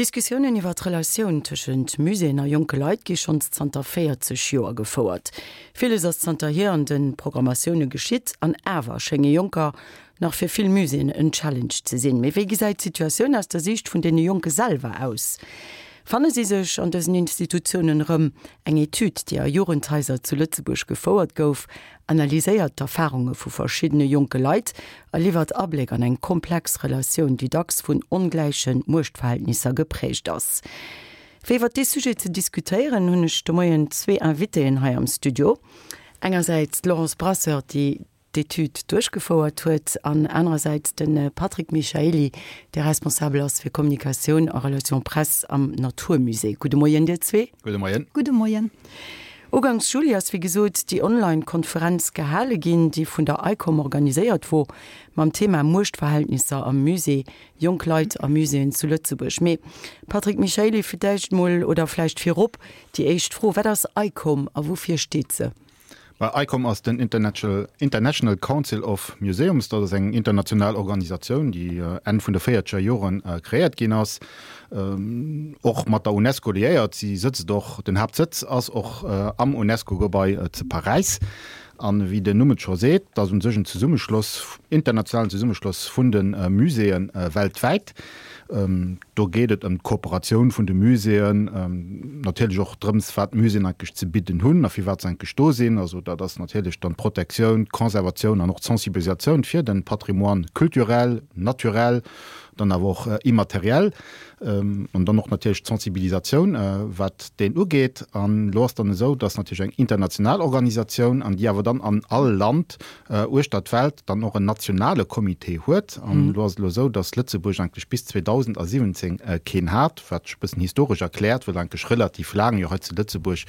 D'Diskussiounen iwwer d'Relatioun tëschent Muséeën a jonke Leit gi schonns zanter 40 Joer gefouert. Villes ass zanterhier an de Programmatioune geschitt, an awer schénge Jonker nach fir vill Muséeën en Challenge ze sinn. Mee wéi gesäit d'Situatioun aus der Siicht vun deene Jonke selwer aus? Fanne si sech an dësen Institutiounen erëm? Eng Etüd, déi a Jugendhaiser zu Lëtzebuerg gefouert gouf, analyséiert d'Erfarunge vu verschiddene jonke Leit a liwwert Abléck an eng komplex Relatioun, déi dacks vun ongläiche Muechtverhältnisser geprägt ass. Fir iwwer dee Sujet ze diskutéieren, hunn ech de Moien zwee Invitéen hei am Studio. Engersäits d'Laurence Brasseur, déi d'Etüd duerchgefouert huet, an anerersäits de Patrick Michaely, dee responsabel ass fir Kommunikatioun a Relations presse am Natur Musée. Gudde Moien dir zwee. Gudde Moien. Gudde Moien. Uganks Juli ass wéi gesot déi Online-Konferenz gehale ginn, déi vun der ICOM organiséiert wor, mam Thema Muechtverhältnisser am Musée, jonk Leit a Muséeën zu Lëtzebuerg. Mee Patrick Michaely, fir d'éischt mol, oder vläicht virop déi éischt Fro, Wat ass ICOM a woufir steet se? Ma ICOM ass den International Council of Museums. Dat ass eng international Organisatioun, déi Enn vun de véierzeger Joren kreéiert ginn ass, och mat der UNESCO liéiert. Si sëtzt och, den Haaptsëtz ass och am UNESCO-Gebai zu Paräis. An wéi den Numm et scho seet, dat ass u sech en Zesummeschloss, internationalen Zesummeschloss vun de Muséeë weltwäit. Do geet et ëm d'Kooperatioun vun de Muséeën, natierlech och drëms, wat d'Muséeën eigentlech ze bidden hunn a firwat se eigentlech do sinn. Also dat ass natierlech dann d'Protektioun, d'Conservatioun an och d'Sensibilisatioun fir de Patrimoine culturel, naturel, dann awer och immatériel. An dann och natierlech d'Sensibilisatioun, wat deen ugeet. An elo ass dann esou, dass natierlech eng international Organisatioun, an déi awer dann an all Land uechter d'Welt dann och en nationale Comité huet. An elo ass et elo esou, datt Lëtzebuerg eigentlech bis 2017 keen hat, wat sech e bëssen historesch erkläert, well eigentlech relativ laang jo hei zu Lëtzebuerg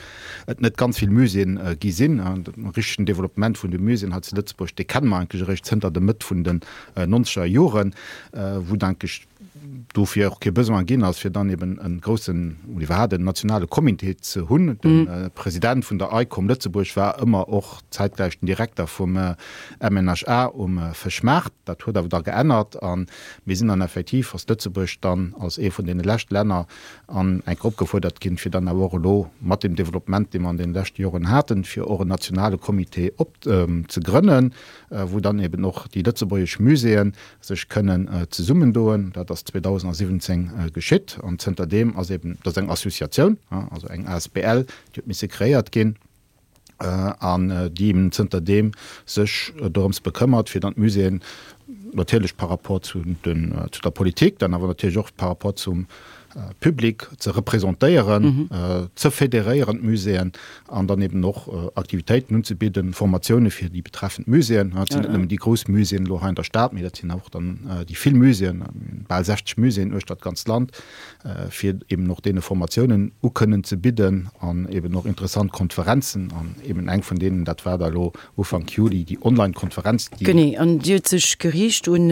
et net ganz vill Muséeën gi sinn. De richtegen Développement vun de Muséeën hei zu Lëtzebuerg, dee kenne mer eigentlech eréischt zënter der Mëtt vun den nonzeger Joren, wou et eigentlech dofir och kee Besoin ginn ass, fir dann eben e groussen oder iwwerhaapt en nationale Comité ze hunn. De President vun der ICOM Lëtzebuerg war ëmmer och zäitgläich den Direkter vum MNHA um Fëschmaart. Dat huet awer da geännert a mir sinn dann effektiv als Lëtzebuerg dann als ee vun deene lescht Länner an eng Kéier opgefuerdert ginn, fir dann awer och elo mat deem Développement, dee mer an deene leschte Joren haten, fir och en nationale Comité op ze grënnen, wou dann eben och déi lëtzebuergesch Muséeën sech kënnen zesummendoen. Dat ass 2017 geschitt an zënterdeem ass eben, dat ass eng Associatioun, also eng asbl, déi huet misse kreéiert ginn an déi eben zënterdeem sech dorëms bekëmmert, fir dann d'Muséeën natierlech par rapport zu den, zu der Politik, dann awer natierlech och par rapport zum Public ze representéieren, ze federéieren, d'Muséeën, an dann eben och Aktivitéiten unzebidden, Formatioune fir déi betreffend Muséeën. Dat sinn net nëmmen déi grouss Muséeën elo hei an der Stad, mee dat sinn och dann déi vill Muséeën, bal 60 Muséeën uechter d'ganzt Land, fir eben och deene Formatiounen ukënnen ze bidden an eben och interessant Konferenzen. An eben eng vun deenen, dat war da elo Ufank Juli déi Online-Konferenz, déi. Genee, an déi huet sech geriicht un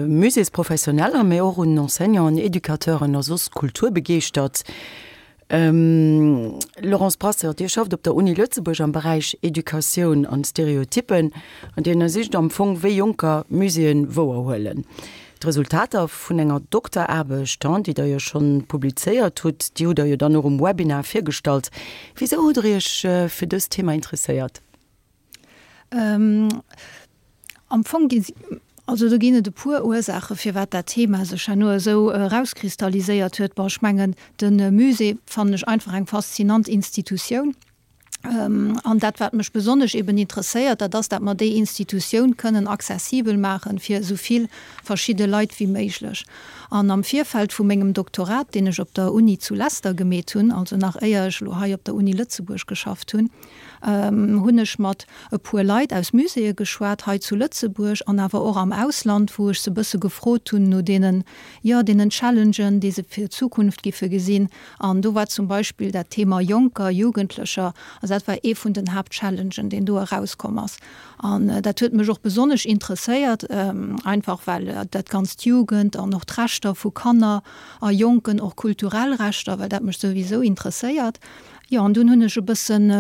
Muséesprofessioneller, mee och un Enseignanten, Educateuren a soss Kulturbegeeschtert. Laurence Brasseur, Dir schafft op der Uni Lëtzebuerg am Beräich Educatioun an Stereotyppen an Dir ënnersicht am Fong, wéi Jonker Muséeën wouerhuelen. D'Resultater vun enger Dokteraarbecht, déi Der jo schonn publizéiert hutt, déi hutt Der jo dann och um Webinar virgestallt. Wisou hutt Der Iech fir dëst Thema interesséiert? Am Fong gi also do ginn et e puer Ursaache firwat dat Thema sech herno esou erauskristalliséiert huet. Bon, ech mengen de Musée fannen ech einfach eng faszinant Institutioun. An dat wat mech besonnesch eben interesséiert, dat ass, dat mer déi Institutioun kënnen accessibel maachen fir esou vill verschidde Leit wéi méiglech. An am Virfeld vu mengem Doktorat, deen ech op der Uni zu Leicester gemeet hunn, also nach éier ech elo hei op der Uni Lëtzebuerg geschafft hunn, hunn ech mat e puer Leit aus Muséeë geschwat, hei zu Lëtzebuerg an awer och am Ausland, wou ech se e bësse gefrot hunn no deenen, jo, deenen Challengen, déi se fir d'Zukunft giffe gesinn. An do war zum Beispill dat Thema Jonker, Jugendlecher, also dat war ee vun den Haaptchallengen, deen do erauskomm ass. An dat huet mech och besonnesch interesséiert, einfach well dat Ganzt Jugend an och d'Rechter vu Kanner a Jonken, och kulturell Rechter, well dat mech souwisou interesséiert. Jo, an dunn hunn ech e bëssen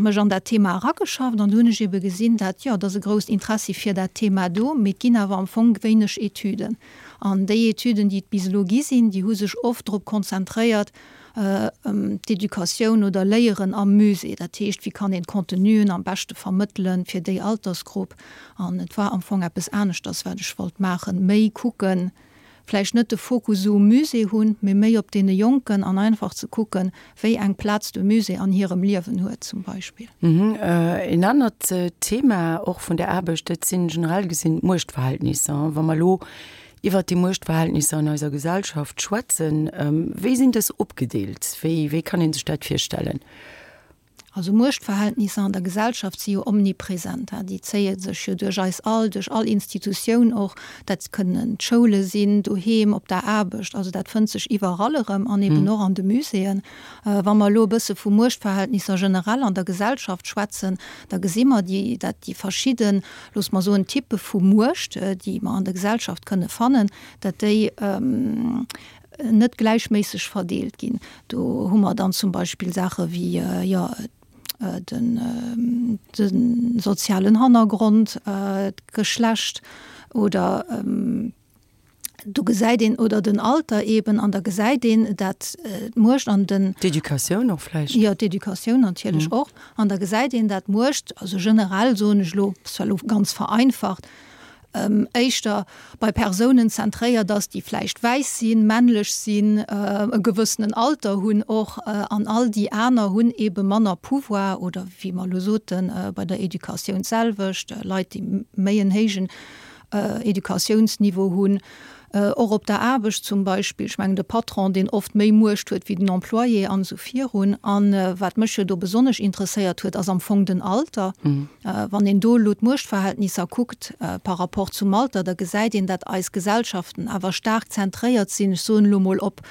mech an dat Thema erageschafft an du hunn ech ebe gesinn, dat, jo, et ass e grousst Interessi fir dat Thema do, mee et ginn awer am Fong wéineg Etüden. An déi Etüden, déi et bis elo gi sinn, déi hu sech oft drop konzentréiert, d'Educatioun oder Léieren am Musée, dat heescht, wéi kann een d'Contenuen am beschte vermëttelen fir déi Altersgrupp. An et war am Fong eppes aneschters, wat ech wollt maachen, méi kucken, vläicht net de Fokus esou um Musée hunn, mee méi op deene Jonken an einfach ze kucken, wéi eng Plaz de Musée an hirem Liewen huet zum Beispill. Een anert Thema och vun der Aarbecht, dat sinn generell gesinn d'Muechtverhältnisser. Wa mer elo iwwert déi Muechtverhältnisser an eiser Gesellschaft schwätzen, wéi sinn dës opgedeelt? Wéi, wéi kann ee sech dat virstellen? Also Muechtverhältnisser an der Gesellschaft si jo omnipresent. Déi zéie sech jo duerch eis all, duerch all Institutioun och. Dat kënnen d'Schoule sinn, doheem, op der Aarbecht. Also dat fënnt sech iwwerall erëm an eben och an de Muséeën. Wa mer elo e bësse vu Muechtverhältnisser generell an der Gesellschaft schwätzen, da gesi mer déi, dat déi verschidden, loosse mer soen, Typpe vu Muecht, déi mer an der Gesellschaft kënne fannen, dat déi net gläichméisseg verdeelt ginn. Do hu mer dann zum Beispill Saache wéi, jo, den, de sozialen Hannergrond, d'Geschlecht oder do gesäit een, oder den Alter eben, an da gesäit een, dat d'Muecht an den. D'Educatioun och vläicht. Jo, d'Educatioun natierlech och. An da gesäit een, dat d'Muecht, also generell soen ech elo, zwar elo ganz vereinfacht, éischter bei Persounen zentréiert ass, déi vläicht wäiss sinn, männlech sinn, e gewëssenen Alter hunn och, an all déi aner hunn eebe manner Pouvoir oder, wéi mer elo soten, bei der Educatioun d'selwecht, Leit, déi méi en héijen Educatiounsniveau hunn, Och op der Aarbecht zum Beispill, ech mengen de Patron, deen oft méi Muecht huet wéi den Employé an esou virun. A wat mech jo do besonnesch interesséiert huet, ass am Fong den Alter. Wann een do elo d'Muechtverhältnisser kuckt par rapport zum Alter, da gesäit een, dat eis Gesellschaften awer staark zentréiert sinn, ech soen elo mol, op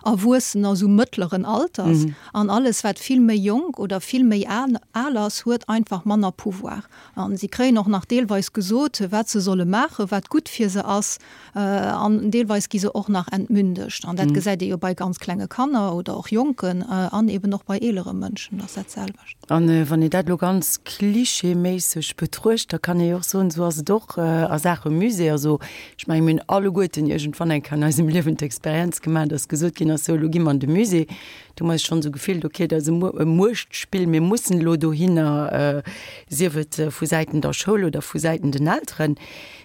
Erwuessener esou mëttleren Alters. An alles wat vill méi jonk oder vill méi al ass, huet einfach manner Pouvoir. A si kréien och nach deelweis gesot, wat se solle maachen, wat gutt fir se ass. An deelweis gi se och nach entmündegt. An dat gesäit ee jo bei ganz klenge Kanner oder och Jonken an eben och bei eelere Mënschen ass dat selwecht. A wann een dat elo ganz klischeeméisseg betruecht, da kann ee jo och soen, esou ass et och a Saache Musée. Also ech mengen, mir hunn alleguerten iergendwann eng Kéier an eisem Liewen d'Experienz gemaach, dass gesot ginn ass, sou elo gi mer an de Musée. Do hu mer eis schonn esou gefillt, okay, dat ass e Muechtspill, mir mussen elo dohinner, sief et vu Säiten der Schoul oder vu Säiten den Elteren.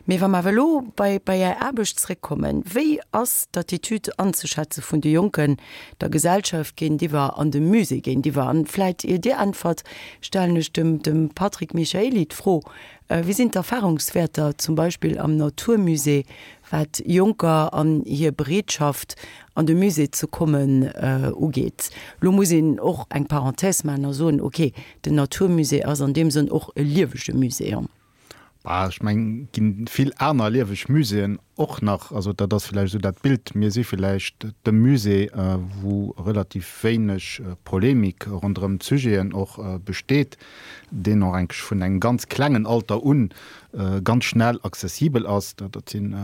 Mee wa mer awer elo bei bei Är Aarbecht zréckkommen, wéi ass d'Attitude anzeschätze vun de Jonken der Gesellschaft géintiwwer an dem Musée géintiwwer? An vläit ier Dir äntwert, stellen ech dem dem Patrick Michaely d'Fro, Wéi sinn d'Erfahrungswäerter zum Beispill am Naturmusée, wat Jonker an hir Bereetschaft an de Musée ze kommen ugeet? Lo muss een och eng Parenthèse maachen a soen, okay, den Naturmusée ass an deem Sënn och e liewege Musée. Bah, ech mengen, et ginn vill aner lieweg Muséeën och nach. Also dat ass villäicht esou dat Bild. Mir si villäicht de Musée, wou relativ wéineg Polemik ronderëm d'Sujeten och besteet, deen och enk vun engem ganz klengen Alter un ganz schnell accessibel ass. Dat sinn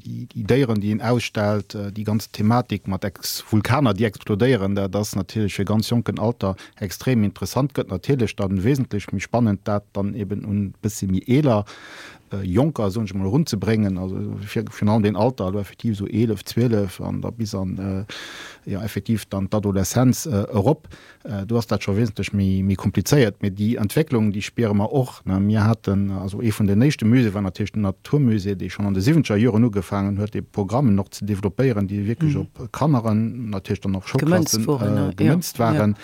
déi Déieren, déi een ausstellt, déi ganz Thematik mat Vulkaner, déi explodéieren, dat ass natierlech fir ganz jonken Alter extrem interessant. Gëtt natierlech dann wesentlech méi spannend, dat dann eben un bëssi méi eeler Jonker, soen ech emol, erunzebréngen, also virun allem deen Alter, elo effektiv esou 11, 12 an da bis an, jo effektiv dann d'Adoleszenz erop. Do ass dat scho wesentlech méi komplizéiert. Mee déi Entwécklung, déi spiere mer och. Mir haten, also ee vun den éischte Muséeë war natierlech den Naturmusée, dee schonn an de siwwenzeger Joren ugefaangen huet, dee Programmen och ze developpéieren, déi wierklech op Kanneren, natierlech dann och Schoulklassen gemënzt waren.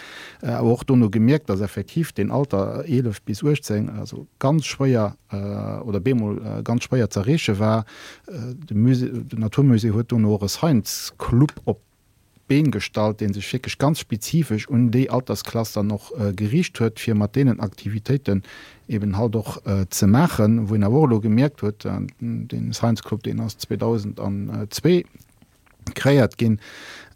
Awer och dono gemierkt, datt effektiv deen Alter 11 bis 18 also ganz schwéier oder bemol ganz schwéier z'erreeche war. De Musée, den Naturmusée huet dono och e Science Club op d'Been gestallt, dee sech wierklech ganz spezifesch un déi Altersklass dann och geriicht huet, fir mat deenen Aktivitéiten eben halt och ze maachen, wou een awer och elo gemierkt huet, dee Science Club, deen ass 2002 kreéiert ginn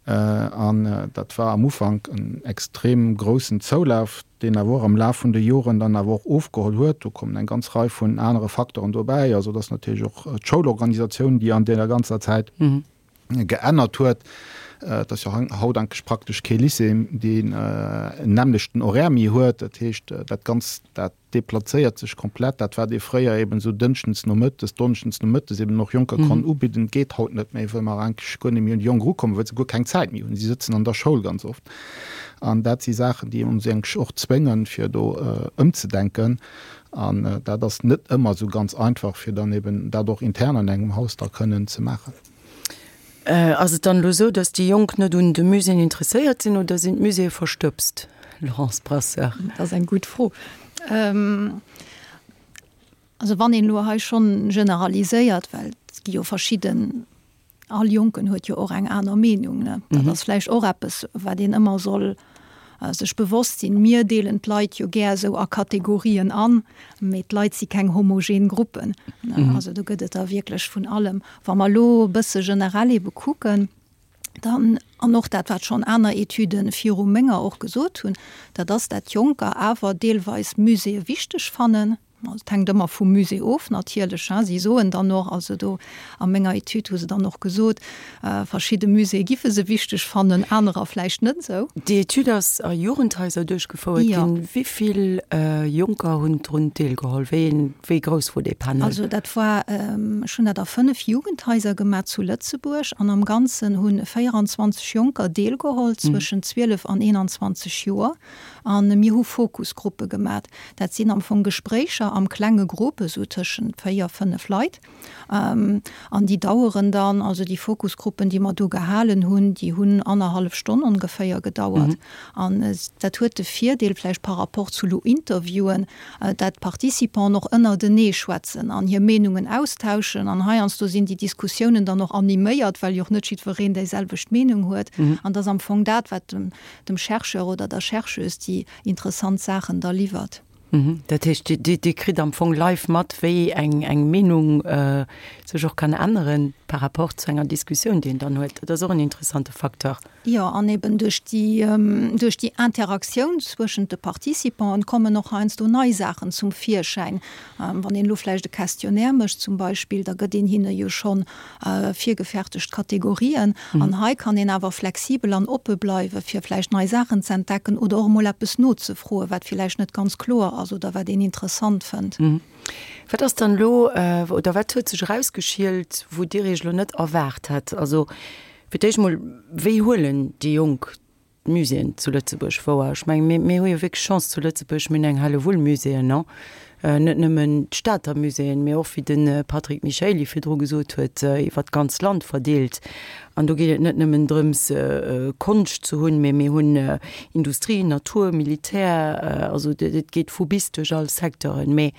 an dat war am Ufank en extrem groussen Zoulaf, deen awer och am Laf vun de Joren dann awer och ofgeholl huet. Do kommen eng ganz Rei vun anere Facteuren dobäi, also et ass natierlech och d'Schoulorganisatioun, déi an deeër ganzer Zäit, geännert huet. Et ass jo haut eigentlech praktesch kee Lycée, deen en nämmlechten Horaire méi huet. Dat heescht, dat Ganzt, dat deplazéiert sech komplett. Dat, wat ee fréier eben esou dënschdens nomëttes, donneschdens nomëttes eben och Jonker konnt ubidden, geet haut net méi, well mer eigentlech guer net méi un déi Jonk erukommen, well se guer keng Zäit méi hunn. Si sëtzen an der Schoul ganz oft. An dat si Saachen, déi ons eigentlech och zwéngen, fir do ëmzedenken. An dat ass net ëmmer esou ganz einfach, fir dann eben dat och intern an engem Haus da kënnen ze maachen. Ass et dann elo esou, datt déi Jonk net un de Muséeën interesséiert sinn oder sinn d'Muséeë verstëbst, Laurence Brasseur? Dat ass eng gutt Fro. Also wann een elo hei schonn generaliséiert, well et gi jo verschidden, all Jonken huet jo och eng aner Meenung, ne? Dat ass vläicht och eppes, wat een ëmmer soll sech bewosst sinn. Mir deelen d'Leit jo gär esou a Kategorien an, mee d'Leit si keng homogen Gruppen. Also do gëtt et der wierklech vun allem. Wa mer elo e bësse generell ebe kucken, dann, an och dat wat schonn aner Etüde viru menger och gesot hunn, dat ass, dat Jonker awer deelweis Muséeë wichteg fannen. Et hänkt ëmmer vum Musée of natierlech. Si soen dann och, also do a menger Etüd hu se dann och gesot, verschidde Muséeë giffe se wichteg fannen, anerer vläicht net esou. Déi Etüd ass a Jugendhaiser duerchgefouert ginn. Wéi vill Jonker hunn drun deelgeholl? Wéi wéi grouss wor dee Panel? Also dat war, ech hunn dat a 5 Jugendhaiser gemaach zu Lëtzebuerg an am Ganzen hu 24 Jonker deelgeholl zwëschen 12 an 21 Joer. A mir hu Fokusgruppe gemat. Dat sinn am Fong Gespréicher am klenge Grupp, esou tëschent 4, 5 Leit. An déi daueren dann, also déi Fokusgruppen, déi mer do gehalen hunn, déi hunn annerhallef Stonn ongeféier gedauert. An dat huet de Virdeel vläicht par rapport zu lo Interviewen, dat d'Participanten och ënnertenee schwätzen an hir Meenungen austauschen. An heiansdo sinn déi Diskussiounen dann och animéiert, well jo och net jiddwereen déiselwecht Meenung huet. An dat ass am Fong dat, wat dem dem Chercheur oder der Chercheuse déi interessant Saachen da liwwert. Dat heescht, Dir kritt am Fong live mat, wéi eng Meenung sech och kann änneren par rapport zu enger Diskussioun, déi een dann huet. Dat ass och en interessante Facteur. Jo, an eben duerch déi, duerch déi Interaktioun zwëschent de Participanten kommen och heiansdo nei Saachen zum Virschäin. Wann een elo vläicht e Questionnaire mécht zum Beispill, da gëtt een hinne jo schonn virgefertegt Kategorien. An hei kann een awer flexibel an oppe bleiwe fir vläicht nei Saachen ze entdecken oder och emol eppes nozefroen, wat villäicht net ganz kloer ass oder wat een interessant fënnt. Wat ass dann elo oder wat huet sech erausgeschielt, wou Dir Iech elo net erwaart hätt? Also fir d'éischt emol, wéi huelen déi Jonk d'Muséeën zu Lëtzebuerg wouer. Ech mengen, mir, mir hu jo wierklech Chance zu Lëtzebuerg, mir hunn eng Hellewull Muséeën, non? Net nëmmen d'Stater Muséeën, mee och, wéi de Patrick Michaely virdru gesot huet, iwwer d'ganz Land verdeelt. An do geet et net nëmmen drëms, Konscht ze hunn, mee mir hunn Industrie, Natur, Militär, also et geet vu bis duerch all Secteuren. Mee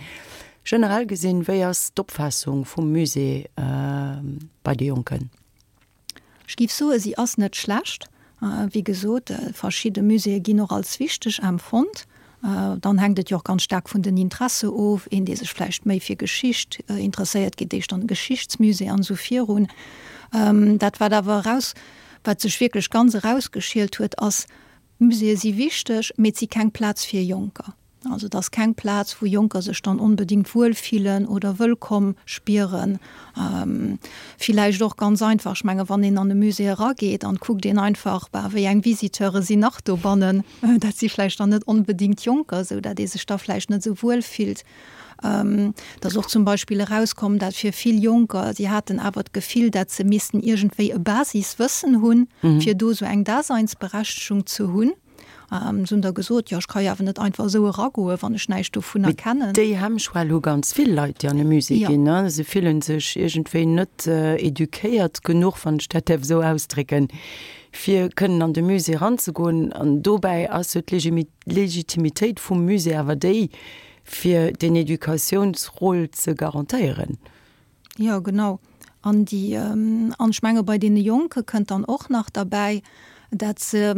generell gesinn, wéi ass d'Opfaassung vum Musée bei de Jonken? Ech géif soen, si ass net schlecht. Wéi gesot, verschidde Muséeë ginn och als wichteg empfonnt. Dann hänkt et jo och ganz staark vun den Interesse of. Een, dee sech vläicht méi fir Geschicht interesséiert, geet éischter an e Geschichtsmusée an esou virun. Dat, wat awer eraus, wat sech wierklech ganz erausgeschielt huet, ass, Muséeë si wichteg, mee et si keng Plaz fir Jonker. Also et ass keng Plaz, wou Jonker sech dann onbedéngt wuel fillen oder wëllkomm spieren. Villäicht och ganz einfach, ech menge wann een an e Musée erageet an kuckt een einfach, bah, wéi eng Visiteure sinn nach dobannen, dat si vläicht dann net onbedéngt Jonker, esou dat ee sech da vläicht net esou wuel fillt. Et ass och zum Beispill erauskomm, dat fir vill Jonker, si haten awer d'Gefill, dat se missten iergendwéi e Basiswëssen hunn, fir do esou eng Daseinsberechtegung ze hunn. Se hunn da gesot, jo ech ka jo awer net einfach esou eragoen, wann ech näischt dovunner kennen. Déi Hemmschwell hu ganz vill Leit, déi an e Musée ginn. Se fillen sech iergendwéi net eduquéiert genuch, wann ech dat däerf esou ausdrécken, fir kënnen an de Musée eranzegoen. An dobäi ass jo d'Legitimitéit vum Musée awer déi, fir deen Educatiounsrôle ze garantéieren. Jo, genau. An déi, an ech menge bei deene Jonke kënnt dann och nach derbäi, dat se.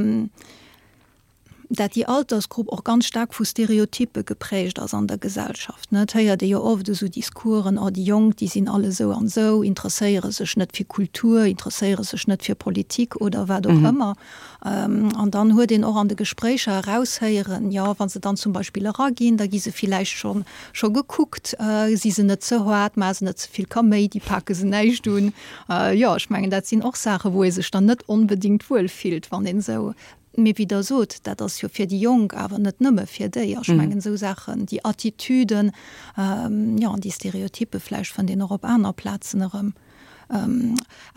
dat déi Altersgrupp och ganz staark vu Stereotyppe geprägt ass an der Gesellschaft, ne. Et héiert ee jo oft esou Discoursen, oh déi Jonk, déi sinn all esou an esou, interesséiere sech net fir Kultur, interesséiere sech net fir Politik oder wat och ëmmer. An dann huet een och an de Gespréicher eraushéieren, jo, wa se dann zum Beispill eraginn, da gi se villäicht scho scho gekuckt, si se net ze haart, maache se net ze vill Kaméidi, pake se näischt un. Jo, ech mengen, dat sinn och Saachen, wou ee sech dann net onbedéngt wuel fillt, wann een esou, mee wéi Der sot, dat ass jo fir déi Jonk, awer net nëmme fir déi. Ech mengen, esou Saachen, déi Attitüden, jo, an déi Stereotyppe vläicht fënnt een och op aner Plazen erëm.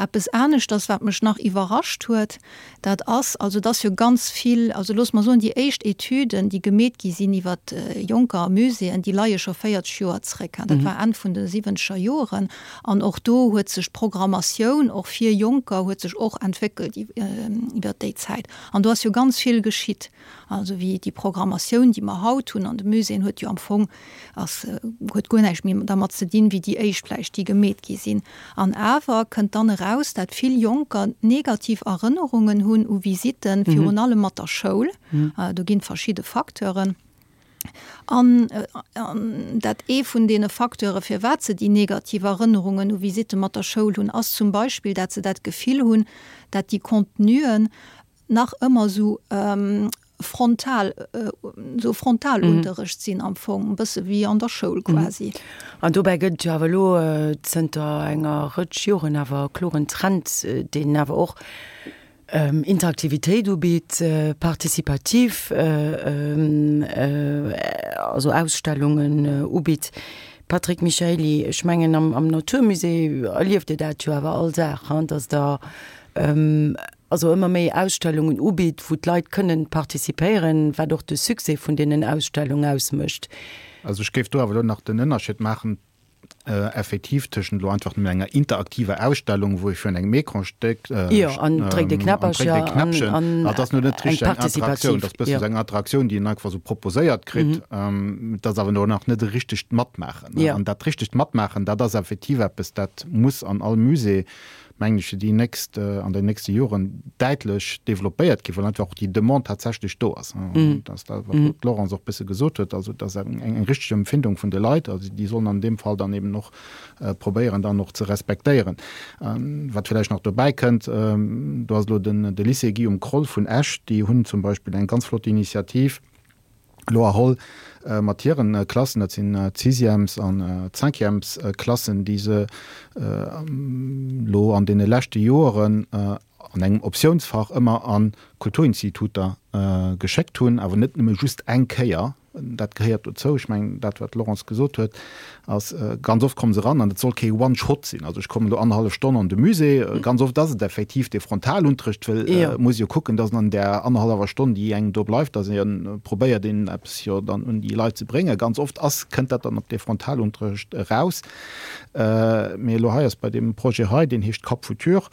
Eppes aneschters, wat mech nach iwwerrascht huet, dat ass, also et ass jo ganz vill, also loosse mer soen, déi éischt Etüden, déi gemeet gi sinn iwwert Jonker a Muséeën, déi leie scho 40 Joer zréck. Dat war Enn vun de siwwenzeger Joren. An och do huet sech d'Programmatioun och fir Jonker huet sech och entwéckelt iwwert déi Zäit. An do ass jo ganz vill geschitt. Also wéi déi Programmatioun, déi mer haut hunn an de Muséeën, huet jo am Fong, ass, huet guer näischt méi dermat ze dinn, wéi déi éischt vläicht, déi gemeet gi sinn. An awer kënnt dann eraus, dat vill Jonker negativ Erënnerungen hunn u Visitten, virun allem mat der Schoul. Do ginn verschidde Facteuren. An dat ee vun deene Facteure firwat se déi negativ Erënnerungen u Visitte mat der Schoul hunn, ass zum Beispill, dat se dat Gefill hunn, dat déi Contenuen nach ëmmer esou frontal, esou Frontalunterrecht sinn am Fong, e bësse wéi an der Schoul quasi. An dobäi gëtt et jo awer elo zënter enger Rëtsch Joren awer e kloren Trend, deen awer och Interaktivitéit ubitt, participativ, also Ausstellungen ubitt. Patrick Michaely, ech mengen am Naturmusée erlieft Dir dat jo awer all Dag, dass Der also ëmmer méi Ausstellungen ubitt, wou d'Leit kënnen participéieren, wat och de Succès vun deenen Ausstellung ausmécht. Also ech géif do awer elo nach den Ënnerscheed maachen effektiv tëschent elo einfach nëmmen enger interaktiver Ausstellung, wou ee virun engem Ecran stéckt, Jo, an dréckt e Knäpperchen, an dat ass elo net richteg eng Interaktioun, dat ass e bëssen esou eng Interaktioun, déi een einfach esou proposéiert kritt, dat ass awer elo nach net e richtegt Matmaachen. An dat richtegt Matmaachen, dat ass effektiv eppes, dat muss an all Musée mengen ech, fir déi nächst, an den nächste Joren däitlech développéiert ginn, well einfach och déi Demande tatsächlech do ass. Dat ass dat, wat elo d'Laurence och e bësse gesot huet, also dass eng, eng richteg Empfindung vun de Leit, also déi sollen an deem Fall dann eben och probéieren dann och ze respektéieren. Wat vläicht nach dobäi kënnt, do ass elo den, de Lycée Guillaume Kroll vun Esch, déi hunn zum Beispill eng ganz flott Initiativ, elo erholl mat hiren Klassen, dat sinn d'Sixièmes an d'Cinquièmes-Klassen, déi se elo an deene leschte Joeren an engem Optiounsfach ëmmer a Kulturinstituter geschéckt hunn, awer net nëmme just eng Kéier, dat gehéiert dozou. Ech mengen, dat wat d'Laurence gesot huet, ass, ganz oft komme se eran an et soll kee One-Shot sinn, also ech kommen elo annerhallef Stonn an de Musée. Ganz oft ass et effektiv dee Frontalunterrecht, well et muss ee jo kucken, dass an där annerhallwer Stonn, déi engem do bleift, dass ee probéiert een eppes jo dann un déi Leit ze bréngen. Ganz oft ass, kënnt dat dann op dee Frontalunterrecht eraus. Mee elo hei ass bei deem Projet hei, deen heescht Cap Futur,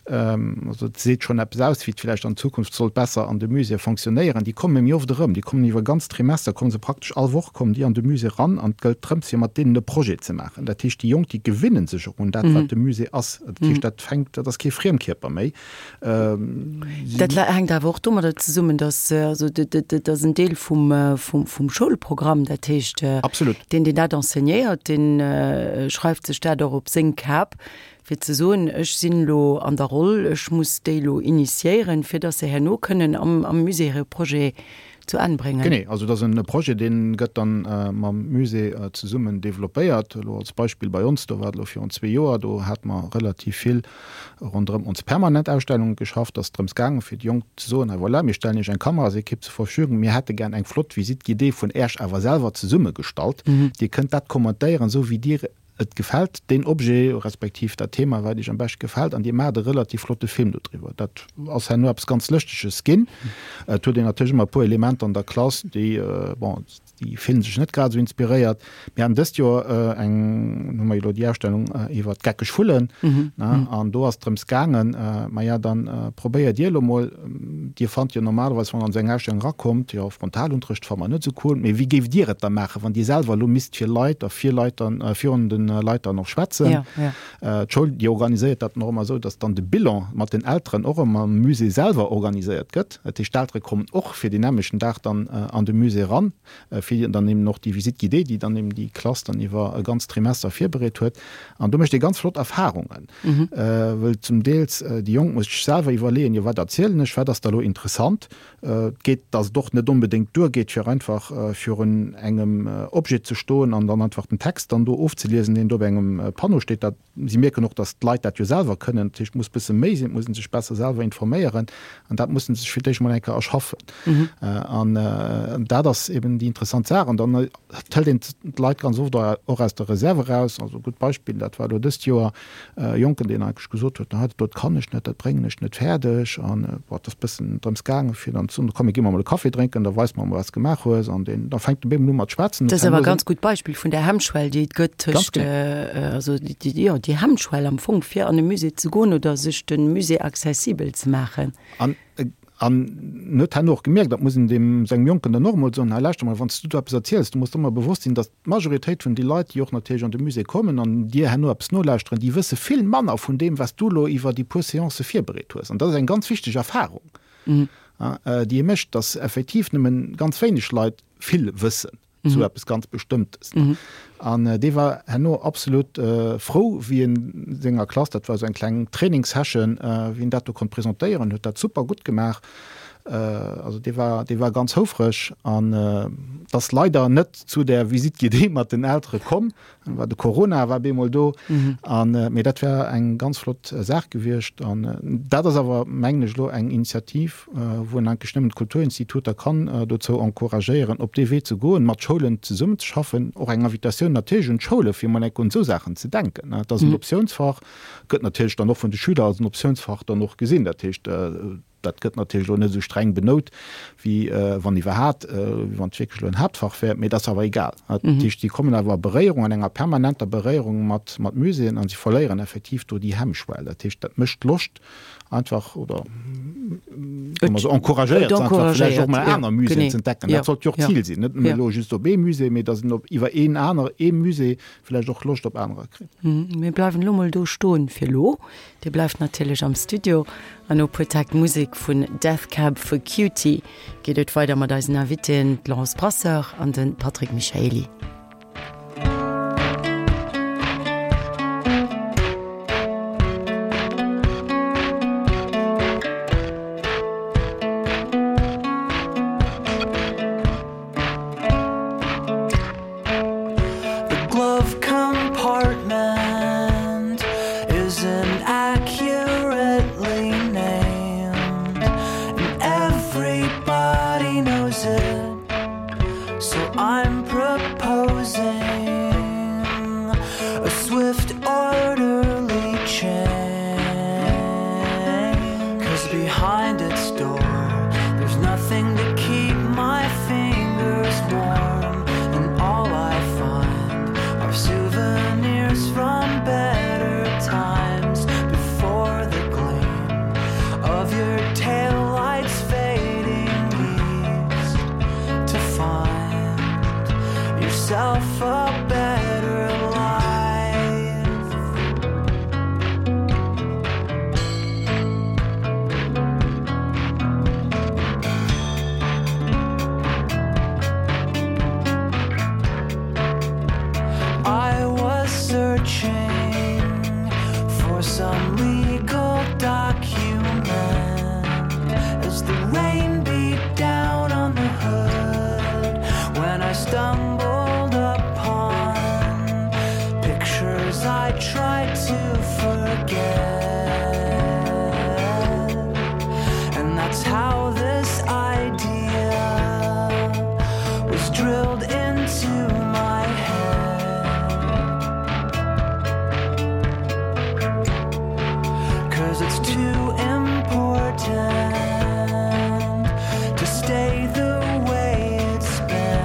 Also et seet schonn eppes aus, wéi et villäicht an Zukunft sollt besser an de Muséeë fonctionnéieren. Déi komme méi oft erëm, déi kommen iwwer e ganzt Trimester, komme se praktesch all Woch kommen déi an de Musée eran an et gëllt drëms, fir mat deenen e Projet ze maachen. Dat heescht, déi Jonk, déi gewinne sech och un dat, wat de Musée ass. Dat heescht, dat fänkt, dat ass kee Friemkierper méi. Dat hänkt awer och domadder zesummen, datt, also dat ass en Deel vum, vum Schoulprogramm. Dat heescht, deen, deen dat enseignéiert, dee schreift sech dat och op seng Kap. fir ze soen, ech sinn elo an der Roll, ech muss déi elo initiéieren, fir dass se herno kënnen am am Musée hire Projet zu Enn bréngen. Genee, also et ass e Projet, dee gëtt dann mam Musée zesummen développéiert. Elo als Beispill bei ons, do war et elo virun zwee Joer, do hate mer relativ vill ronderëm ons permanent Ausstellunge geschafft. Et ass drëms gaangen, fir déi Jonk ze soen, hei voilà, mir stellen Iech eng Kamerasequipe zur Verfügung, mir hätte gär eng flott Visite guidée vun Äerch awer selwer zesummegestallt. Dir kënnt dat kommentéieren, esou wéi Dir Et gefält deen Objet, respektiv dat Thema, wat iech am beschte gefält, an dir maacht e relativ flotte Film dodriwwer. Dat ass herno eppes ganz Lëschteges ginn. Et huet een natierlech ëmmer e puer Elementer an der Klass, déi, bon, déi fillen sech net grad esou inspiréiert. Mir haten dëst Joer eng, hu mer jo elo déi Ausstellung iwwer d'geckeg Vullen, ne, an do ass et drëms gaangen, maja, dann probéiert dir elo mol, dir fannt jo normalerweis, wann der an esou eng Ausstellung erakommt, jo, Frontalunterrecht fanne mer net esou cool, mee wéi géift dir et da maachen, wann dir selwer elo misst fir Leit a fir Leit dann virun de. Leit dann och schwätzen. D'Schoul, déi organiséiert dat dann och ëmmer esou, dass dann de Bilan mat den Elteren och ëmmer am Musée selwer organiséiert gëtt. Dat heescht, d'Eltere kommen och fir deen nämmlechten Dag dann an de Musée eran, fir dann eben och déi Visite guidée, déi dann eben déi Klass dann iwwer e ganzt Trimester virbereet huet. An do mécht ee ganz flott Erfahrungen, wëll zum Deels déi Jonk muss sech selwer iwwerleeën, jo wat erzielen ech, wat ass da lo interessant, Et geet, dass et och net onbedéngt duergeet, fir einfach virun engem Objet ze stoen an dann einfach den Text dann do ofzeliesen, deen do op engem Panneau steet. Dat, si mierken och, dass d'Leit dat jo selwer kënnen. Dat heescht, et muss e bësse méi sinn, et muss ee sech besser selwer informéieren an dat musse se sech fir d'éischt mol eng Kéier erschaffen. An dat ass eben déi interessant Saach. An dann hëlt een d'Leit ganz oft och aus der Reserve eraus. Also e gutt Beispill, dat war elo dëst Joer, E Jonken, deen eigentlech gesot huet, dat do kann ech net, dat bréngen ech net fäerdeg. An bon, et ass e bëssen drëms gaangen, fir dann ze soen, komm mir gi mer emol e Café drénken, da weis mer emol, wat s de gemaach hues. An deen, da fänkt e bemol u mat schwätzen. Dat ass awer e ganz gutt Beispill vun där Hemmschwell, déi et gëtt tëscht, also déi, jo, déi Hemmschwell am Fong, fir an e Musée ze goen oder sech de Musée accessibel ze maachen. An An en huet herno och gemierkt, dat muss een deem sengem Jonken dann och emol soen, hei lauschter mol, wann s du do eppes erziels, du muss der ëmmer bewosst sinn, datt d'Majoritéit vun de Leit, déi och natierlech an de Musée kommen an dir herno eppes nolauschteren, déi wësse vill manner vun deem, wat s du elo iwwer déi puer Seancë virbereet hues. An dat ass eng ganz wichteg Erfahrung, déi ee mécht, datt effektiv nëmmen ganz wéineg Leit vill wëssen. zu eppes ganz Bestëmmtes. An dee war herno absolut frou, wéi en senger Klass, dat war esou eng kleng Trainingssession, wéi en dat do konnt presentéieren, huet dat super gutt gemaach. Also dee war, dee war ganz houfreg. An et ass leider net zu där Visite guidée mat den Eltere komm, war de Corona war bemol do an mee dat wär eng ganz flott Saach gewiescht an dat ass awer mengen ech elo eng Initiativ wou een eigentlech nëmmen d'Kulturinstituter kann dozou encouragéieren op dee Wee ze goen, mat Schoulen zesummen ze schaffen. Och eng Invitatioun natierlech un d'Schoule fir emol enk un esou Saachen ze denken. Et ass en Optiounsfach, gëtt natierlech dann och vun de Schüler als en Optiounsfach dann och gesinn. Dat heescht Dat gëtt natierlech elo net esou streng benout, wéi wann iwwerhat, wéi wann et wierklech elo en Haaptfach wär, mee dat ass awer egal. Dat heescht, si kommen awer a Beréierung, an enger permanenter Beréierung mat Muséeën a si verléieren effektiv do déi Hemmschwell. Dat heescht, dat mécht Loscht einfach oder soe mer esou, encouragéiert se einfach vläicht och mol aner Muséeën ze entdecken. Dat sollt jo och d'Zil sinn, net nëmme elo just op ee Musée, mee datt een op iwwer een aner, ee Musée vläicht och Loscht op anerer kritt. Mir bleiwen elo mol do stoen fir elo. Dir bleift natierlech am Studio an no puer Täkt Musek vun Death Cab for Cutie geet et weider mat eisen Invitéen, d'Laurence Brasseur an de Patrick Michaely. The glove compartment isn't accurately named and everybody knows it so I'm proposing a swift orderly change cause behind its door there's nothing to keep my fingers warm and all I find are souvenirs from better times before the gleam of your taillights fading east to find yourself a better life. I was searching for some legal document as the rain beat down on the hood when I stumbled upon pictures I tried to forget. And that's how this idea was drilled into my head. Cause it's too important to stay the way it's been.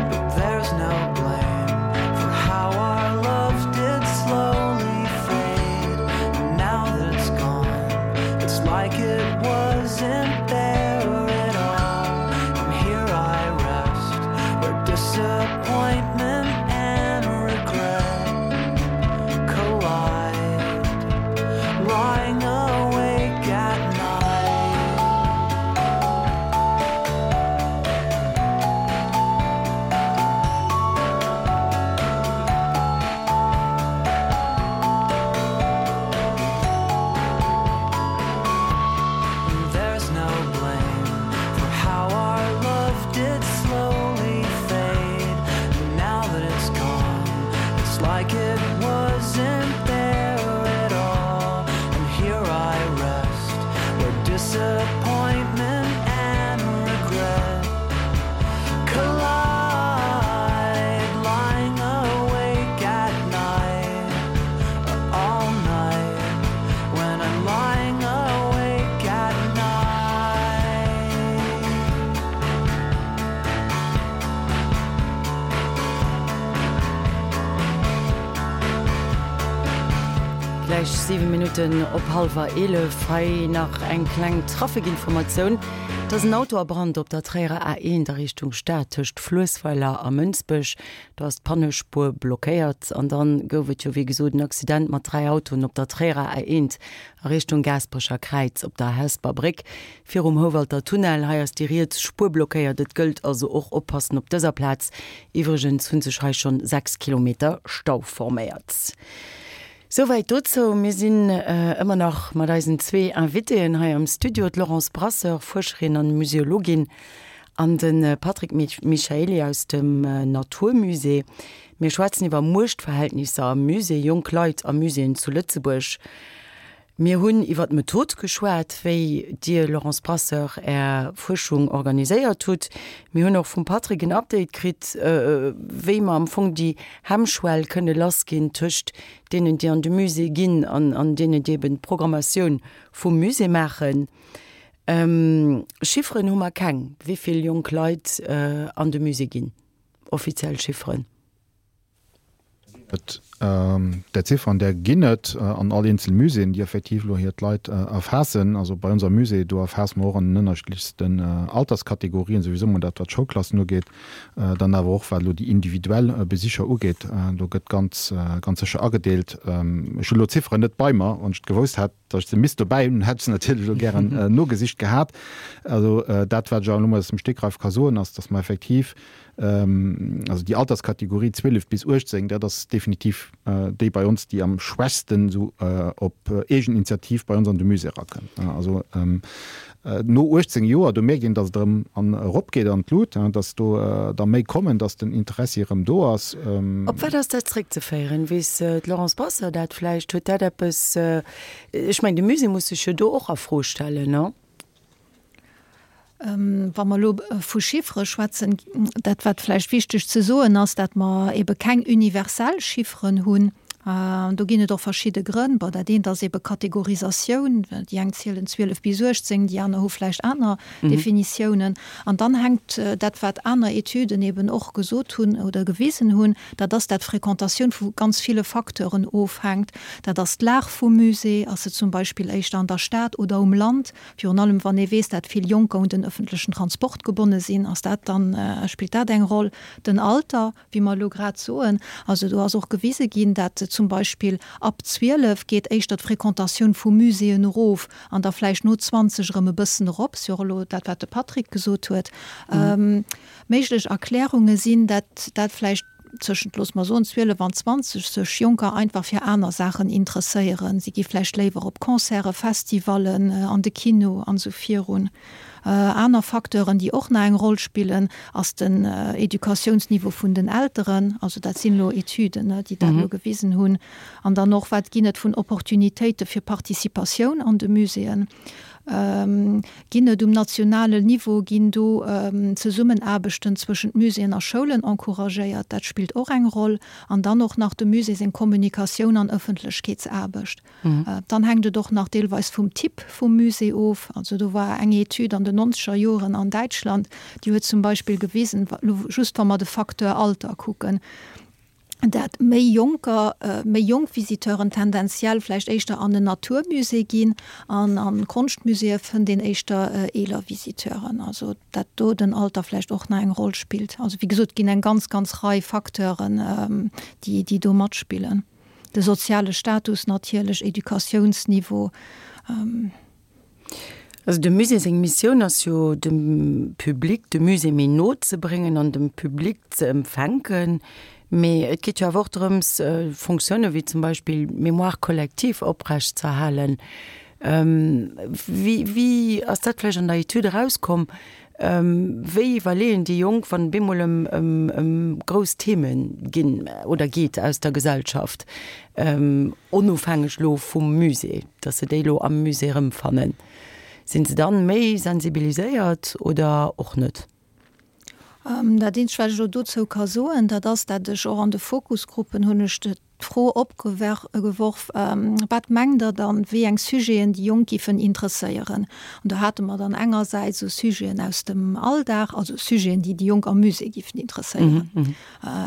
But there's no blame for how our love did slowly fade. And now that it's gone, it's like it wasn't there at all. And here I rest where disappointment. Gläich 7 Minutten op hallwer 11. Hei nach eng kleng Trafikinformatioun. Et ass en Auto a Brand op der Tréierer A1 a Richtung Stad tëscht Fluessweiler a Mënsbech. Do ass d'Pannespuer blockéiert. An dann gouf et jo wéi gesot en Accident mat 3 Autoen op der Tréierer A1 a Richtung Gaasperecher Kräiz op der Hesper Bréck virum Houwalter Tunnel. Hei ass déi riets Spuer blockéiert. Et gëllt also och oppassen op dëser Plaz. Iwwregens hu sech hei schonn 6 Kilometer Stau forméiert. Souwäit dozou. Mir sinn ëmmer nach mat eisen zwee Invitéen hei am Studio, d'Laurence Brasseur, Fuerscherin an Museologin, an de Patrick Michaely aus dem Natur Musée. Mir schwätzen iwwer Muechtverhältnisser am Musée, jonk Leit a Muséeën zu Lëtzebuerg. Mir hunn iwwer d'Method geschwat, wéi Dir, Laurence Brasseur, Är Fuerschung organiséiert hutt. Mir hunn och vum Patrick en Update kritt, wéi mer am Fong déi Hemmschwell kënne lassginn tëscht deenen, déi an de Musée ginn an deenen, déi eben d'Programmatioun vum Musée maachen. Chifferen hu mer keng, wéi vill jonk Leit an de Musée ginn, offiziell Chifferen. Et där Zifferen, där ginn et an all eenzel Muséeën, déi effektiv elo hir d'Leit erfaassen. Also bei ons am Musée, do erfaasse mer och an den ënnerschiddlechsten Alterskategorien, souwisou mol dat, wat d'Schoulklassen ugeet, dann awer och wat elo déi individuell Besicher ugeet. Do gëtt ganz, ganz sécher agedeelt. Ech hunn elo d'Zifferen net bei mer. Wann ech et gewousst hätt, datt ech se misst dobäi hunn, hätt ech se natierlech elo gären nogesicht gehat. Also dat, wat ech awer elo mol aus dem Stegreif ka soen, ass, datt mer effektiv Also déi Alterskategorie 12 bis 18, dat ass definitiv déi bei ons, déi am schwächsten esou op Eegeninitiativ bei ons an de Musée erakënnt. Also no 18 Joer, do mierkt een, datt et erëm an eropgeet an d'Lut, datt do der méi kommen, datt den Interessi erëm do ass. Op wat ass dat zréckzeféieren? Weess d'Laurence Brasseur dat vläicht? Huet dat eppes, ech mengen de Musée muss sech jo do och a Fro stellen, non? Wa mer elo vu Chiffere schwätzen, dat wat vläicht wichteg ze soen ass, dat mer ebe keng universell Chifferen hunn. Do ginn et och verschidde Grënn. Bon, dat eent ass ebe Kategorisatioun, déi eng zielen 12 bis 18, déi aner hu vläicht aner Definitiounen. An dann hänkt dat, wat aner Etüden eben och gesot hunn oder gewisen hunn, dat ass, dat d'Fréquentatioun vu ganz ville Facteuren ofhänkt. Dat ass d'Lag vum Musée, ass se zum Beispill éischter an der Stad oder um Land? Virun allem wann ee weess, dat vill Jonker un den ëffentlechen Transport gebonne sinn, ass dat dann, spillt dat eng Roll. Den Alter, wéi mer elo grad soen, also do ass och gewise ginn, dat zum Beispill ab 12 geet éischter d'Fréquentatioun vu Muséeën erof an da vläicht no 20 erëm e bëssen erop. Ass jo och elo dat, wat de Patrick gesot huet. Méiglech Erklärunge sinn, dat dat vläicht tëschent, loosse mer soen, 12 an 20 sech Jonker einfach fir aner Saachen interesséieren. Si gi vläicht léiwer op Concerten, Festivallen, an de Kino an esou virun. Aner Facteuren, déi och nach eng Roll spillen, ass den Educatiounsniveau vun den Elteren. Also dat sinn elo Etüden, déi dat elo gewisen hunn. An dann och, wat ginn et vun Opportunitéite fir Participatioun an de Muséeën? Ginn et um nationalen Niveau, ginn do Zesummenaarbechten zwëschent Muséeën a Schoulen encouragéiert? Dat spillt och eng Roll. An dann och nach dem Musée seng Kommunikatioun an Ëffentlechkeetsaarbecht. Dann hänkt et och nach deelweis vum Typ vum Musée of. Also do war eng Etüd an den nonzeger Joren an Däitschland, déi huet zum Beispill gewisen, just wa mer de Facteur Alter kucken, dat méi Jonker, méi jonk Visiteuren tendenziell vläicht éischter an en Naturmusée ginn an an Konschtmuséeë fënnt een éischter eeler Visiteuren. Also dat do den Alter vläicht och nach eng Roll spillt. Also wéi gesot, et ginn eng ganz, ganz Rei Facteuren, déi, déi do matspillen. De soziale Status natierlech, Educatiounsniveau. Also dem Musée seng Missioun ass jo dem Public de Musée méi no ze bréngen an dem Public ze empfänken. Mee et geet jo awer och drëms Fonctionne wéi zum Beispill d'Mémoire collective oprecht z'erhalen. Wéi wéi ass dat vläicht an der Etüd erauskomm? Wéi iwwerleeën déi Jonk, wann et bemol ëm ëm ëm grouss Theme ginn oder geet aus der Gesellschaft, onofhängeg elo vum Musée, datt se déi elo am Musée erëmfannen? Sinn se dann méi sensibiliséiert oder och net? Dat eenzegt, wat ech elo dozou ka soen, dat ass, dat ech och an de Fokusgruppen hunn ech. d'Fro opgeworf, Wat mengt Der dann, wéi eng Sujeten déi Jonk giffen interesséieren? An do hate mer dann engersäits esou Sujeten aus dem Alldag, also Sujeten, déi déi Jonk am Musée giffen interesséieren.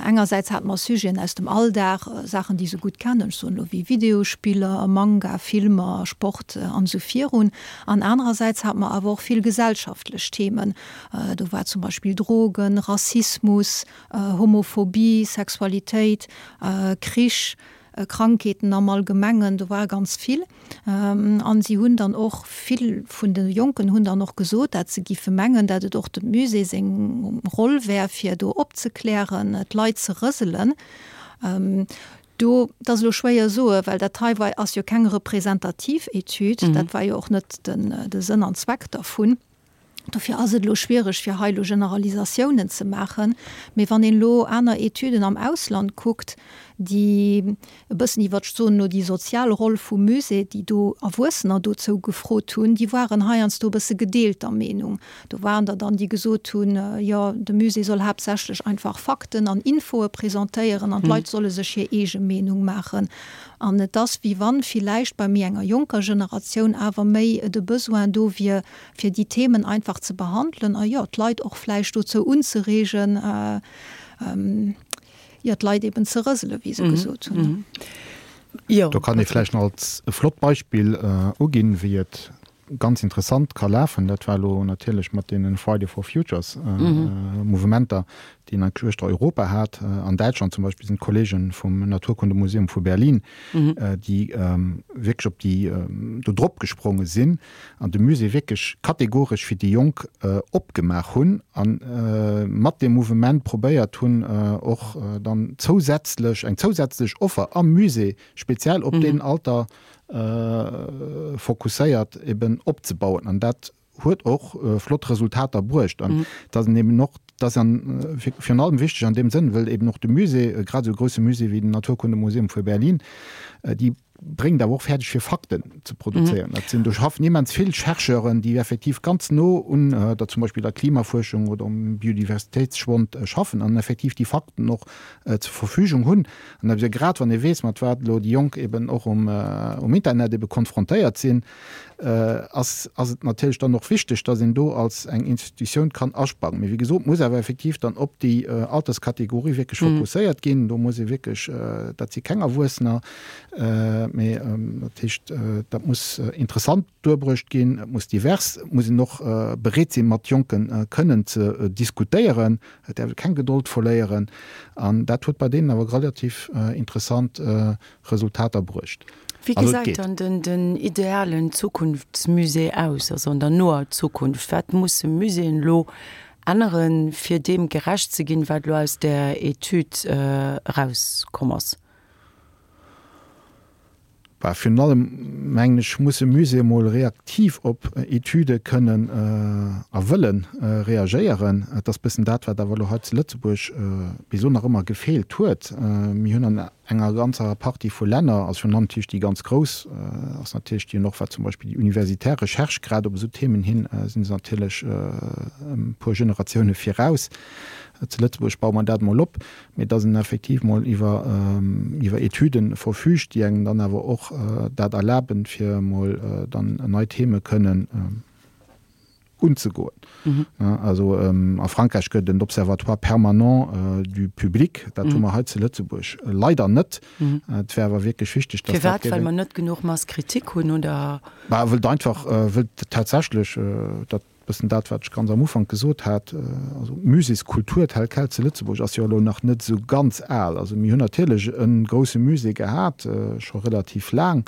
Engersäits hate mer Sujeten aus dem Alldag, Saachen, déi se gutt kennen, ech soen elo wéi Videospiller, Manga, Filmer, Sport an esou virun. An anerersäits hate mer awer och vill gesellschaftlech Themen. Do war zum Beispill Drogen, Rassismus, Homophobie, Sexualitéit, Krich, Krankheeten am Allgemengen, do war ganz vill. An si hunn dann och, vill vun de Jonken hunn dann och gesot, dat se giffe mengen, dat et och dem Musée seng Roll wär, fir do opzeklären, d'Leit ze rëselen. Do, dat ass elo schwéier soen, well dat hei war, ass jo keng representativ Etüd, dat war jo och net de Sënn an Zweck dervun. Dofir ass et elo schwiereg, fir hei elo Generalisatiounen ze maachen. Mee wann een elo aner Etüden am Ausland kuckt, déi e bëssen iwwert, ech soen elo, déi sozial Roll vum Musée, déi do Erwuessener dozou gefrot hunn, déi waren heiansdo e bësse gedeelter Meenung. Do waren der dann, déi gesot hunn, jo, de Musée soll haaptsächlech einfach Fakten an Infoe presentéieren an d'Leit solle sech hir eege Meenung maachen. An et ass, wéi wann villäicht bei méi enger jonker Generatioun awer méi de Besoin do wier, fir déi Themen einfach ze behandelen a jo, d'Leit och vläicht dozou unzereegen, jo, d'Leit eben ze rëselen, wéi se gesot hunn. Do kann ee vläicht nach als e flott Beispill uginn, wéi et ganz interessant ka lafen. Dat war elo natierlech mat deene Friday for Futures Mouvementer, déi een eigentlech uechter Europa hat. An Däitschland zum Beispill sinn d'Kollege vum Naturkundemuseum vu Berlin, déi wierklech op déi do drop gespronge sinn an de Musée wierklech kategoresch fir déi Jonk opgemaach hunn a mat deem Mouvement probéiert hunn, och dann zousätzlech eng zousätzlech Offer am Musée speziell op deen Alter fokusséiert eben opzebauen. An dat huet och flott Resultater bruecht. An dat ass eben och, dat ass virun allem wichteg an deem Sënn, wëll eben och de Musée, grad esou e grousse Musée wéi den Naturkundemuseum vu Berlin, déi bréngt awer och fäerdeg fir Fakten ze produzéieren. Dat sinn, do schaffen immens vill Chercheuren, déi effektiv ganz no un der zum Beispill der Klimafuerschung oder um Biodiversitéitsschwond schaffen an effektiv déi Fakten och zur Verfügung hunn. An da grad wann ee weess, mat wat elo déi Jonk eben och um um Internet ebe konfrontéiert sinn, ass ass et natierlech dann och wichteg, datt een do als eng Institutioun kann asprangen. Mee wéi gesot, muss awer effektiv dann op déi Alterskategorie wierklech fokusséiert ginn. Do muss ee wierklech, dat si keng Erwuessener, mee dat heescht, dat muss interessant duerbruecht ginn, et muss divers, et muss een och bereet sinn, mat Jonke kënnen ze diskutéieren, et däerf ee keng Gedold verléieren. An dat huet bei deenen awer relativ interessant Resultater bruecht. Wéi gesäit dann den idealen Zukunftsmusée aus, also an der noer Zukunft? Wat musse Muséeën elo änneren, fir deem gerecht ze ginn, wat elo aus där Etüd erauskomm ass? Bah, virun allem, mengen ech, musse Muséeë mol reaktiv op Etüde kënnen a wëlle reagéieren. Et ass bëssen dat, wat awer elo hei zu Lëtzebuerg bis elo nach ëmmer gefeelt huet. Mir hunn an enger ganzer Partie vu Länner, also virun allem natierlech déi ganz grouss, ass natierlech déi hunn och, wat zum Beispill déi universitär Recherche grad op esou Themen hin, si se natierlech e puer Generatioune viraus. Zu Lëtzebuerg baue mer dat mol op. mee dass en effektiv mol iwwer iwwer Etüden verfügt, déi engem dann awer och dat erlaben, fir emol dann nei Theme kënnen unzegoen. Also a Frankräich gëtt et en Observatoire permanent du public, dat hu mer hei zu Lëtzebuerg leider net. Et wär awer wierklech wichteg, dass dat. Firwat? Well mer net genuch Masse critique hunn, oder? Bah, wëllt einfach, wëllt tatsächlech dat Bëssen dat, wat ech ganz am Ufank gesot hat, also d'Muséeskultur tel quel zu Lëtzebuerg ass jo elo nach net esou ganz al. Also mir hunn natierlech e grousse Musée gehat, scho relativ laang,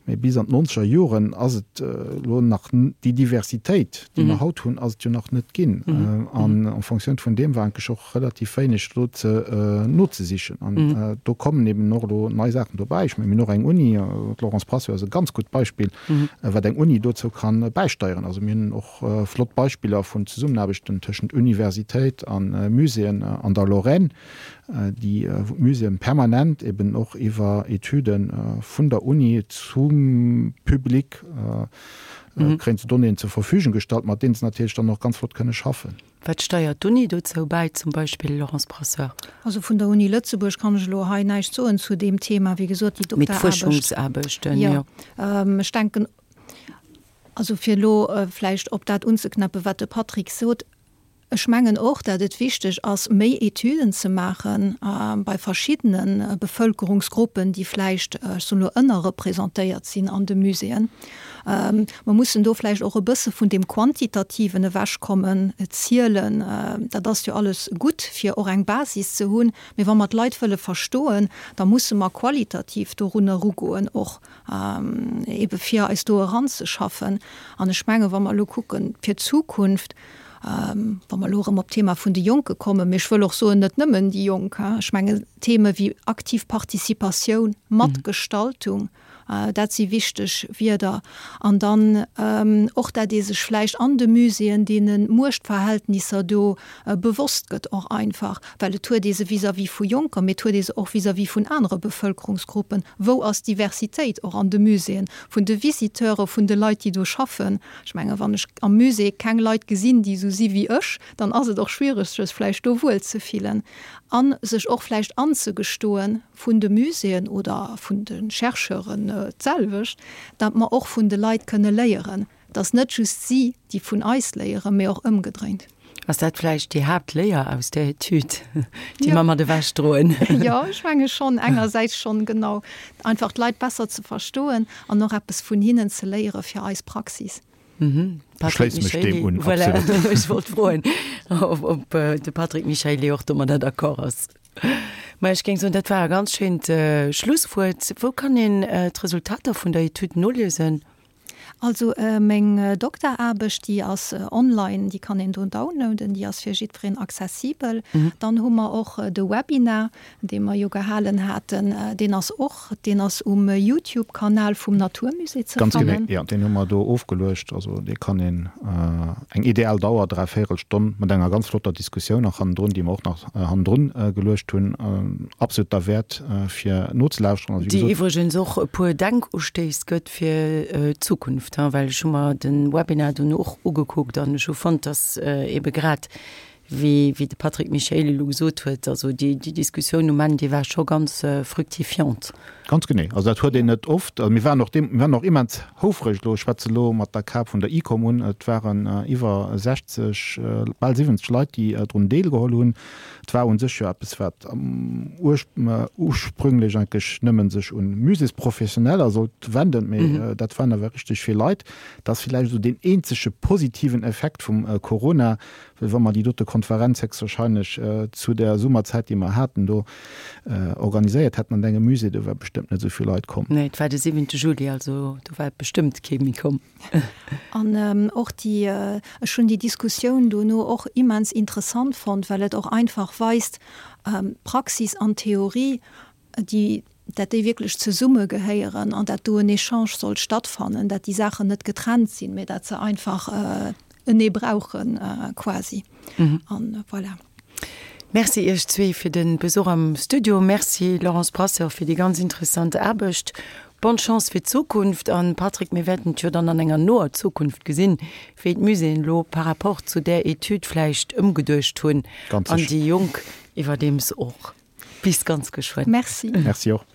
mä bis an d'nonzeger Joren ass et elo nach, déi Diversitéit, déi mer haut hunn, ass et jo nach net ginn. An en Fonctioun vun deem war eigentlech och relativ wéineg do ze nozesichen. An do kommen eben och elo nei Saachen dobäi. Ech mengen, mir hunn och eng Uni, d'Laurence Brasseur ass e ganz gutt Beispill, wat eng Uni dozou ka bäisteieren. Also mir hunn och flott. flott Beispiller vun Zesummenaarbechten tëschent Universitéit a Muséeën an der Lorraine, déi, wou d'Muséeën permanent eben och iwwer Etüde vun der Uni zum Public kréien se Donnéeën zur Verfügung gestallt, mat deenen se natierlech dann och ganz flott kënne schaffen. Wat steiert d'Uni dozou bäi zum Beispill, Laurence Brasseur? Also vun der Uni Lëtzebuerg kann ech elo hei näischt soen zu deem Thema. Wéi gesot, déi Mee Dokteraarbecht. d'Fuerschungsaarbechten, jo. Jo. Ech denken, also fir elo vläicht op dat unzeknäppen, wat de Patrick sot, Ech mengen och, dat et wichteg ass, méi Etüden ze maache bei verschiddene Bevölkerungsgruppen, déi vläicht, ech soen elo, ënnerrepresentéiert sinn an de Muséeën. Mer mussen do vläicht och e bësse vun deem Quantitativen ewechkommen, Zielen, dat ass jo alles gutt, fir och eng Basis ze hunn, mee wa mer d'Leit wëlle verstoen, da musse mer qualitativ dorun erugoen och, ebe fir eis do eranzeschaffen. An ech menge wa mer elo kucken fir d'Zukunft, wa mer elo erëm op d'Thema vun de Jonke kommen, mee ech wëll och soen, net nëmmen déi Jonk, ech menge Theme wéi aktiv Participatioun, Matgestaltung, Dat si wichteg Wierder. An dann och, dat ee sech vläicht an de Muséeën deene Muechtverhältnisser do bewosst gëtt och einfach, well et huet ee se vis-à-vis vu Jonker, mee et huet ee se och vis-à-vis vun anere Bevëlkerungsgruppen. Wou ass d'Diversitéit och an de Muséeën, vun de Visiteure, vun de Leit, déi do schaffen? Ech menge wann ech am Musée keng Leit gesinn, déi esou si wéi ech, dann ass et och schwiereg, sech vläicht do wuelzefillen a sech och vläicht anzegestoen, vun de Muséeën oder vun de Chercheuren d'selwecht, datt mer och vun de Leit kënne léieren, datt net just si, déi vun eis léieren, mee och ëmgedréint. Ass dat vläicht déi Haaptléier aus där Etüd, déi mer mat ewech droen? Jo, ech menge schonn, engersäits schonn, genau, einfach d'Leit besser ze verstoen an och eppes vun hinnen ze léiere fir eis Praxis. Ech schléisse mech deem un, absolut. Voilà, ech wollt froen, ob de Patrick Michaely och domadder d'accord ass. Ma ech géing soen, dat war e ganz schéint Schlusswuert. Wou kann een d'Resultater vun der Etüd noliesen? Also meng Dokteraarbecht, déi ass online, déi kann een do downloaden, déi ass fir jiddwereen accessibel. Dann hu mer och de Webinar, dee mer jo gehalen haten, deen ass och, deen ass um Youtube-Kanal vum Naturmusée ze fannen. Ganz genee, jo, deen hu mer do ofgeluecht. Also dee kann een, eng ideal Dauer, dräivéierel Stonn, mat enger ganz flotter Diskussioun nach hannendrun, déi mer och nach hannendrun geluecht hunn, absolut derwäert fir nozelauschteren. Also wéi gesot. Déi iwwregens och e puer Denkustéiss gëtt fir d'Zukunft, well ech hu mer de Webinar dunn och ugekuckt an ech hu fonnt, dass eebe grad Wéi de Patrick Michaely elo gesot huet, also déi Diskussioun um Enn, déi war scho ganz fructifiant. Ganz genee. Also dat huet een net oft. Also mir waren och deem, mir waren och immens houfreg elo, ech schwätze elo mat der Kap vun der ICOM un, et waren iwwer 60, bal 70 Leit, déi drun deelgeholl hunn. Et war u sech jo eppes, wat ursprünglech eigentlech nëmme sech un Muséesprofessioneller sollt wenden, mee dat waren awer richteg vill Leit. Dat ass villäicht esou deen eenzege positiven Effekt vum Corona, Well wa mer déi dote Konferenz héchstwahrscheinlech zu der Summerzäit, déi mer haten, do organiséiert hätten an engem Musée, do wär bestëmmt net esou vill Leit komm. Nee, et war de siwente Juli, also do war bestëmmt kee méi komm. An och déi, ech hunn déi Diskussioun dono och immens interessant fonnt, well et och einfach weist, Praxis an Theorie, déi, dat déi wierklech zesumme gehéieren an dat do en Echange sollt stattfannen, dat déi Saachen net getrennt sinn, mä dat se einfach enee brauchen quasi. An voilà. Merci Iech zwee fir de Besuch am Studio. Merci Laurence Brasseur fir déi ganz interessant Aarbecht. Bonne Chance fir d'Zukunft. An Patrick, mir wäerten et jo dann an enger noer Zukunft gesinn, wéi d'Muséeën elo par rapport zu där Etüd vläicht ëmgeduecht hunn an déi Jonk iwwerdeems och. Bis ganz geschwënn. Merci. Merci och.